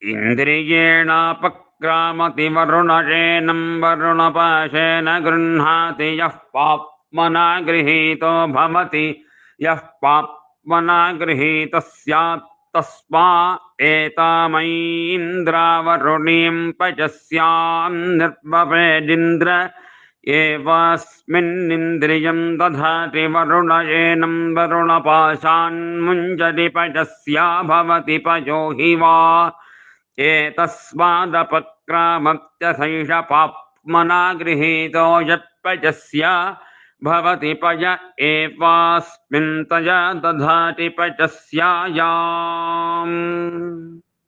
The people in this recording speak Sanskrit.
इन्द्रियेणापक्रामति वरुणशेनं वरुणपाशेन गृह्णाति यः पाप्मना गृहीतो भवति यः पाप्मना गृहीतः स्यात् तस्मा एतामैन्द्रावरुणीं पचस्यां निर्वपेदिन्द्र एवास्मिन्निन्द्रियं दधाति वरुणशेनं वरुणपाशान्मुञ्जति पचस्या भवति पयो हि वा एतस्मादपक्रामत्यथैष पाप्मना गृहीतो यत्पचस्य भवति पय एवास्मिन् तया दधाति पचस्यायाम्।